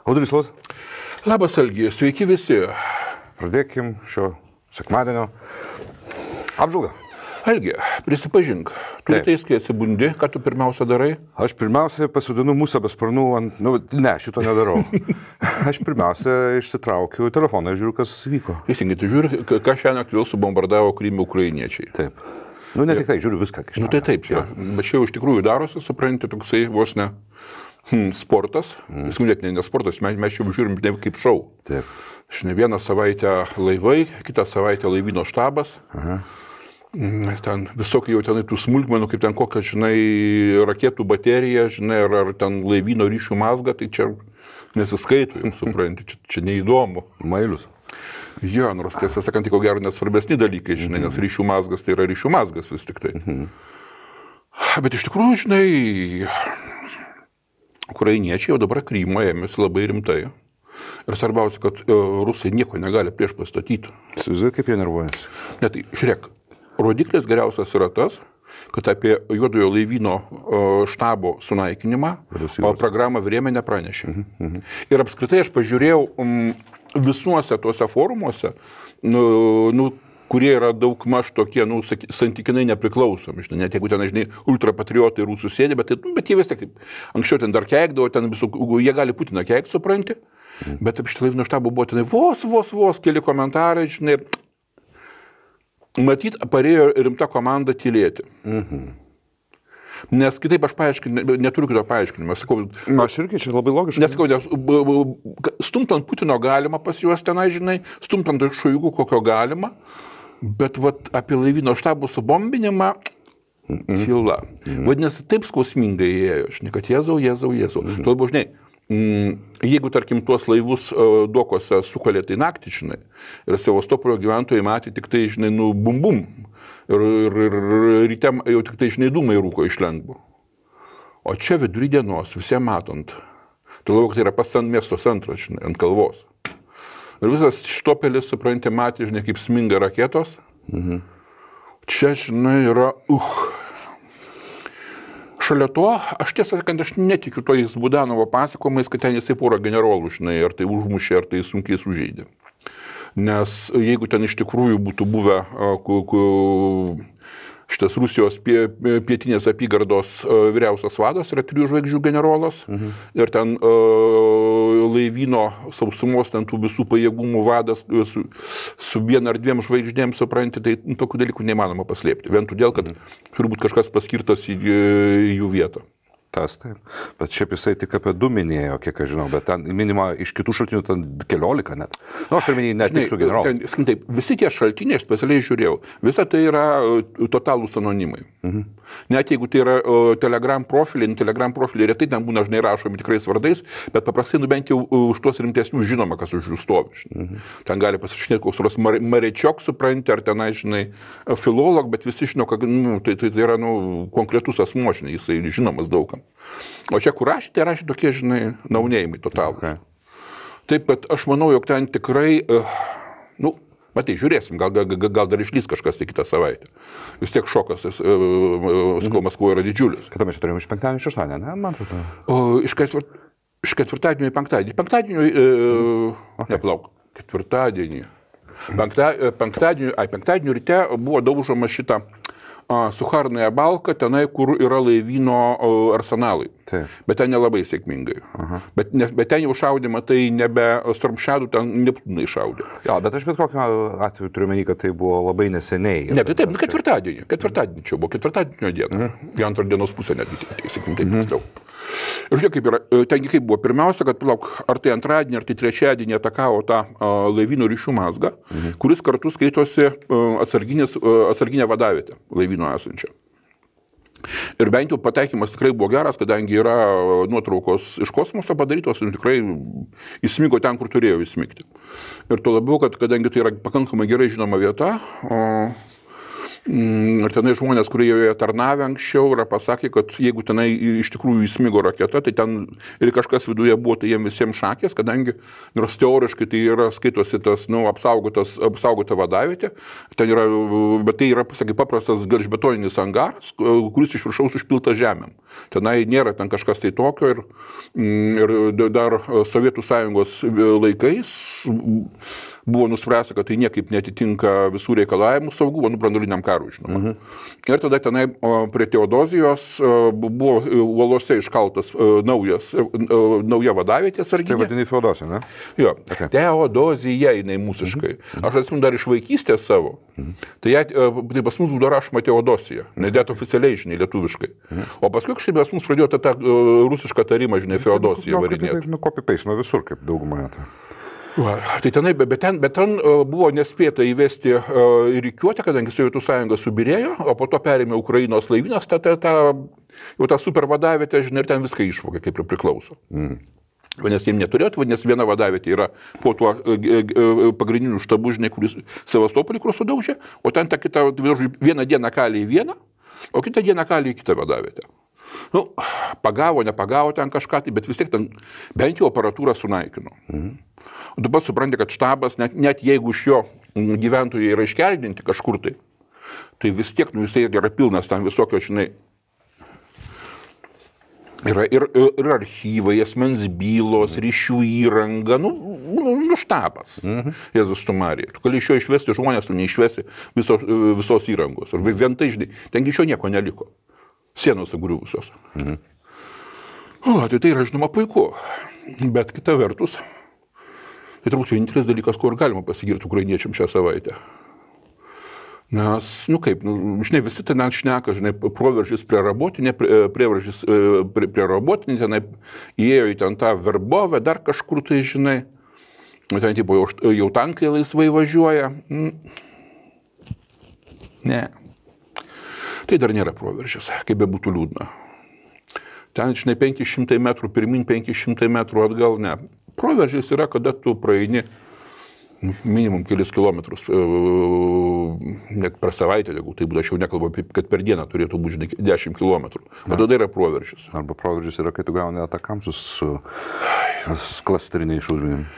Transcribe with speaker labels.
Speaker 1: Audrys Lus.
Speaker 2: Labas, Algi, sveiki visi.
Speaker 1: Pradėkim šio sekmadienio apžvalgą.
Speaker 2: Algi, prisipažink, tu rytais, kai atsibundi, ką tu pirmiausia darai?
Speaker 1: Aš pirmiausia pasodinu musę be sparnų ant... Ne, šito nedarau. Aš pirmiausia išsitraukiu telefoną ir žiūriu, kas vyko.
Speaker 2: Teisingai, tu žiūri, ką šiandien vėl subombardavo Krymą ukrainiečiai.
Speaker 1: Taip. Ne tik tai, žiūriu viską.
Speaker 2: Tai taip, jo. Bet čia jau iš tikrųjų darosi, supranti, toksai vos ne sportas. Net ne sportas, mes čia žiūrim ne kaip šou.
Speaker 1: Taip.
Speaker 2: Žinai, vieną savaitę laivai, kitą savaitę laivyno štabas.
Speaker 1: Aha.
Speaker 2: Ten visokiai jau tenai tų smulkmenų, kaip ten kokia, žinai, raketų baterija, žinai, ar ten laivyno ryšių mazga, tai čia nesiskaito, jums supranti, čia neįdomu.
Speaker 1: Mailius.
Speaker 2: Jo, nors tiesą sakant, ko gero nesvarbesni dalykai, žinai, nes ryšių mazgas tai yra ryšių mazgas vis tik tai. Bet iš tikrųjų, žinai, ukrainiečiai jau dabar Krymą ėmėsi labai rimtai. Ir svarbiausia, kad rusai nieko negali prieš pastatyti.
Speaker 1: Įsivaizduoju, kaip jie nervuojasi.
Speaker 2: Ne, tai žiūrėk, rodiklis geriausias yra tas, kad apie juodojo laivyno štabo sunaikinimą programą Vremia nepranešė. Ir apskritai aš pažiūrėjau visuose tuose forumuose, kurie yra daug maž tokie, santykinai nepriklausomi. Net jeigu ten, žinai, ultrapatriotai rusų sėdė, bet jie vis tiek, anksčiau ten dar keikdavo, ten visų, jie gali Putiną keikti, supranti, bet apie šitą laivyno štabą buvo ten vos keli komentarai, žinai, matyt, parėjo rimta komanda tylėti. Nes kitaip aš neturiu kito paaiškinimo.
Speaker 1: Aš irgi čia labai logiškai.
Speaker 2: Nesakau, stumtant Putino galima pas juos tenai, žinai, stumtant Šoigu kokio galima, bet vat, apie laivyno štabų subombinimą tyla. Vadinasi, taip skausmingai ėjo, žinai, kad Jėzau. Tuo labiau, žinai, jeigu, tarkim, tuos laivus dokose sukalė tai naktį, žinai, ir Sevastopolio gyventojai matė tik tai, žinai, bum. Ir ryte jau tik tai, žinai, dūmai rūko iš lengvo. O čia vidury dienos, visiems matant, tuo labiau, kad tai yra pats ant miesto centras, žinai, ant kalvos. Ir visas Štopelis, supranti, matė, žinai, kaip sminga raketos. Čia, žinai, yra Šalia to, aš tiesą sakant, aš netikiu tojais Budanovo pasakojimais, kad ten jisai porą generolų, žinai, ar tai užmušė, ar tai sunkiai sužeidė. Nes jeigu ten iš tikrųjų būtų buvę šitas Rusijos pietinės apygardos vyriausias vadas, yra 3 žvaigždžių generolas, ir ten laivyno sausumos, ten tų visų pajėgumų vadas su 1 ar 2 žvaigždėm, supranti, tai tokių dalykų neįmanoma paslėpti. Vien todėl, kad turi būti kažkas paskirtas į jų vietą.
Speaker 1: Tas taip. Bet šiaip jisai tik apie 2 minėjo, kiek aš žinau, bet ten minima iš kitų šaltinių ten 14 net. Aš turiu minėjai net tik su generolu.
Speaker 2: Taip, visi tie šaltiniai, aš specialiai žiūrėjau, visa tai yra totalūs anonimai. Net jeigu tai yra Telegram profiliai retai ten būna, žinai, rašomi tikrais vardais, bet paprastai bent jau už tuos rimtesnius žinoma, kas už jų stovi. Ten gali pasirašinėti koks nors Marečiok, supranti, ar tenai, žinai, filolog, bet visi žino, kad tai yra konkretus asmuo, žinai, jisai žinomas daugam. O čia, kur rašė, tai rašė tokie, žinai, naunėjimai totalūs. Taip, bet aš manau, jog ten tikrai, matai, žiūrėsim, gal dar išlys kažkas tai kitą savaitę. Vis tiek šokas, Maskvoje yra didžiulis.
Speaker 1: Kada mes čia turėjome iš penktadienio į šeštadienį, ne, man atrodo?
Speaker 2: Iš ketvirtadienio į penktadienį. Ketvirtadienį. Penktadienio ryte buvo daužoma šitą Sucharnaja Balka, tenai, kur yra laivyno arsenalai.
Speaker 1: Taip.
Speaker 2: Bet ten nelabai sėkmingai. Bet ten jau šaudymą, tai nebe Stormshadų, ten Neptūnai šaudė.
Speaker 1: Jo, bet aš bet kokiu atveju turiu menį, kad tai buvo labai neseniai.
Speaker 2: Ne, tai taip, ketvirtadienį čia buvo, ketvirtadienio dieną. Į antrą dienos pusę netgi, sakykim, taip tiksliau. Ir žiūrėk, kaip yra, tengi kaip buvo. Pirmiausia, kad ar tai antradienį, ar tai trečiadienį atakavo tą laivyno ryšių mazgą, kuris kartu skaitosi atsarginę vadavietę laivyno esančią. Ir bent jau pataikymas tikrai buvo geras, kadangi yra nuotraukos iš kosmoso padarytos ir tikrai įsmigo ten, kur turėjo įsmigti. Ir tuo labiau, kad kadangi tai yra pakankamai gerai žinoma vieta, Ir tenai žmonės, kurie joje tarnavę anksčiau, yra pasakę, kad jeigu tenai iš tikrųjų įsmigo raketa, tai ten ir kažkas viduje buvo, tai jiems visiems šakės, kadangi nors teoriškai tai yra skaitosi tas, apsaugota vadavietė, ten yra, bet tai yra, sakai, paprastas gelžbetoninis angaras, kuris iš viršaus užpiltas žemėm. Tenai nėra ten kažkas tai tokio ir dar Sovietų Sąjungos laikais buvo nuspręsta, kad tai niekaip netitinka visų reikalavimų saugumo, branduoliniam karui, žinoma. Ir tada tenai prie Teodozijos buvo uolose iškaltas nauja vadavietė sarginė.
Speaker 1: Tai vadini Feodosija, ne?
Speaker 2: Jo, okay. Teodozija jinai mūsiškai. Aš atsimenu dar iš vaikystės savo. Tai pas mus būdavo rašoma Teodosija, nedėt oficialiai, žinai, lietuviškai. O paskui kažkaip pas mus pradėjo tą rusišką tarimą, žinai, Feodosiją varinėti.
Speaker 1: Copy-paste nuo visur, kaip daugumą.
Speaker 2: Tai tenai, bet ten buvo nespėta įvesti rikiuotę, kadangi Sovietų Sąjunga subirėjo, o po to perėmė Ukrainos laivynas, jau tą super vadavietę, žinai, ir ten viską išvogė, kaip ir priklauso. Vadinasi, jiems neturėtų, vadinasi, viena vadavietė yra po tuo pagrindiniu štabu, žinai, kuris Sevastopolį, kur sudaužė, o ten ta kita, vieną dieną kalė į vieną, o kitą dieną kalė į kitą vadavietę. Nu, pagavo, nepagavo ten kažką, bet vis tiek ten bent jau aparatūrą sunaikino. O dabar supranti, kad štabas, net jeigu iš jo gyventojai yra iškeldinti kažkur tai vis tiek, jisai yra pilnas tam visokio, žinai, yra ir archyvai, asmens bylos, ryšių įranga, štabas. Jėzus tu Marija. Tu gali iš jo išvesti žmonės, tu neišvesi visos įrangos. Ir vien tai, žinai, tengi iš jo nieko neliko. Sienos agriuvusios. Tai yra, žinoma, puiku. Bet kita vertus, tai turbūt vienintelis dalykas, kur galima pasigirti ukrainiečiam šią savaitę. Nes, žinai, visi ten šneka, žinai, proveržys prie Rabotinė, prieveržys prie Rabotinė, tenai įėjo į ten tą Verbovę, dar kažkur tai, žinai, ten tipo, jau tankai laisvai važiuoja. Ne. Tai dar nėra proveržys, kaip be būtų liūdna. Ten, žinai, 500 metrų pirmin, 500 metrų atgal, ne. Proveržys yra, kada tu praeini minimum kelis kilometrus, net per savaitę, jeigu tai būtų, aš jau nekalbu, kad per dieną turėtų būti 10 kilometrų. O tada yra proveržys.
Speaker 1: Arba proveržys yra, kai tu gauni atakamsus su klasteriniais šaudmenim.